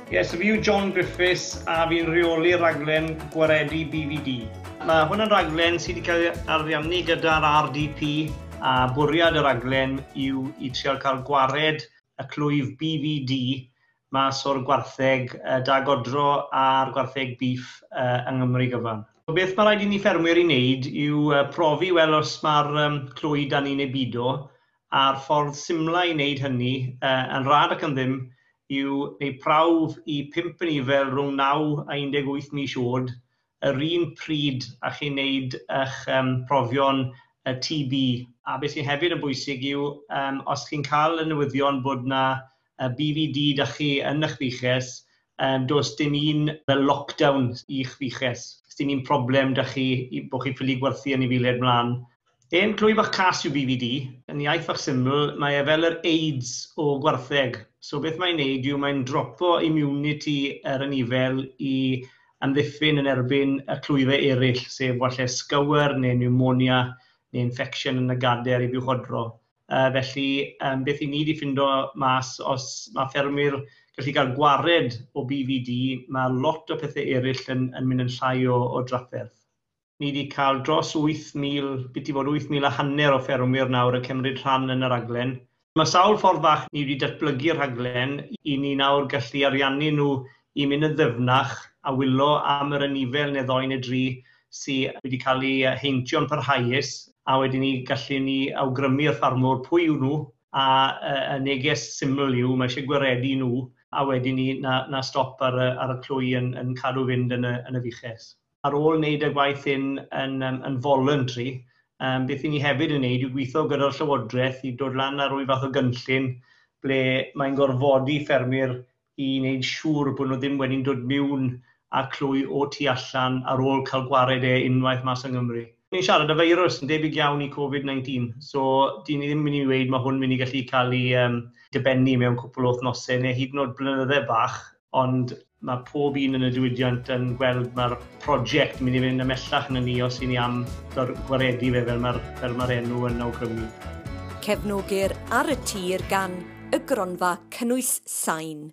Ie, so fi yw John Griffiths a fi'n rheoli raglen gwaredu BVD. Mae hwn yn raglen sydd wedi cael ei ariannu gyda'r RDP a bwriad y raglen yw i trial cael gwared y clwyf BVD mas o'r gwartheg da godro a'r gwartheg beef yng Nghymru gyfan. Beth mae rhaid i ni ffermwyr i wneud yw profi wel os mae'r clwy da ni neu bido, a'r ffordd symla i wneud hynny yn rhad ac yn ddim yw wneud prawf i 5 anifail rhwng 9 a 18 mis oed yr un pryd a chi'n wneud eich profion TB. A beth sy'n hefyd yn bwysig yw os chi'n cael y newyddion bod na BVD da chi yn eich fuches, does dim un fel lockdown i'ch fuches. Does dim un problem da chi bod chi'n ffili gwerthu anifeiliaid mlaen. Un clwy bach cas yw BVD, yn iaith fach syml, mae e fel yr AIDS o gwartheg. So beth mae'n neud yw mae'n dropo immunity yr anifail i amddiffyn yn erbyn y clwyfau eraill, sef falle scour neu pneumonia neu infection yn y gader i fuwchodro. Felly, beth i ni wedi ffindo mas, os mae ffermwyr gallu cael gwared o BVD, mae lot o pethau eraill yn mynd yn llai o drafferth. Ni wedi cael dros 8,000, biti fod 8,500 o ffermwyr nawr yn cymryd rhan yn y raglen. Mae sawl ffordd fach ni wedi datblygu'r rhaglen i ni nawr gallu ariannu nhw i mynd yn ddyfnach a wylo am yr anifail neu ddoi neu dri sydd wedi cael ei heintio'n parhaus, a wedyn ni gallu ni awgrymu'r ffarmwr pwy yw nhw, a y neges syml yw mae eisiau gwaredu nhw, a wedyn ni na stop ar y clwy yn cadw fynd yn y fuches. Ar ôl wneud y gwaith hyn yn voluntary, beth i ni hefyd yn wneud yw gweithio gyda'r Llywodraeth i dod lan ar ryw fath o gynllun ble mae'n gorfodi ffermwyr i wneud siŵr bod nhw ddim wedi'n dod mewn a clwy o tu allan ar ôl cael gwared e unwaith mas yng Nghymru. Ni'n siarad y feirws yn debyg iawn i Covid-19, so dyn ni ddim mynd i weud mae hwn mynd i gallu cael ei dibennu mewn cwpl o wythnosau neu hyd yn oed blynydde bach, ond mae pob un yn y diwydiant yn gweld mae'r prosiect mynd i fynd ymhellach na ni os i ni am gwaredu fe fel mae'r enw yn awgrymu. Cefnogir Ar y Tir gan y Gronfa Cynnwys Sain.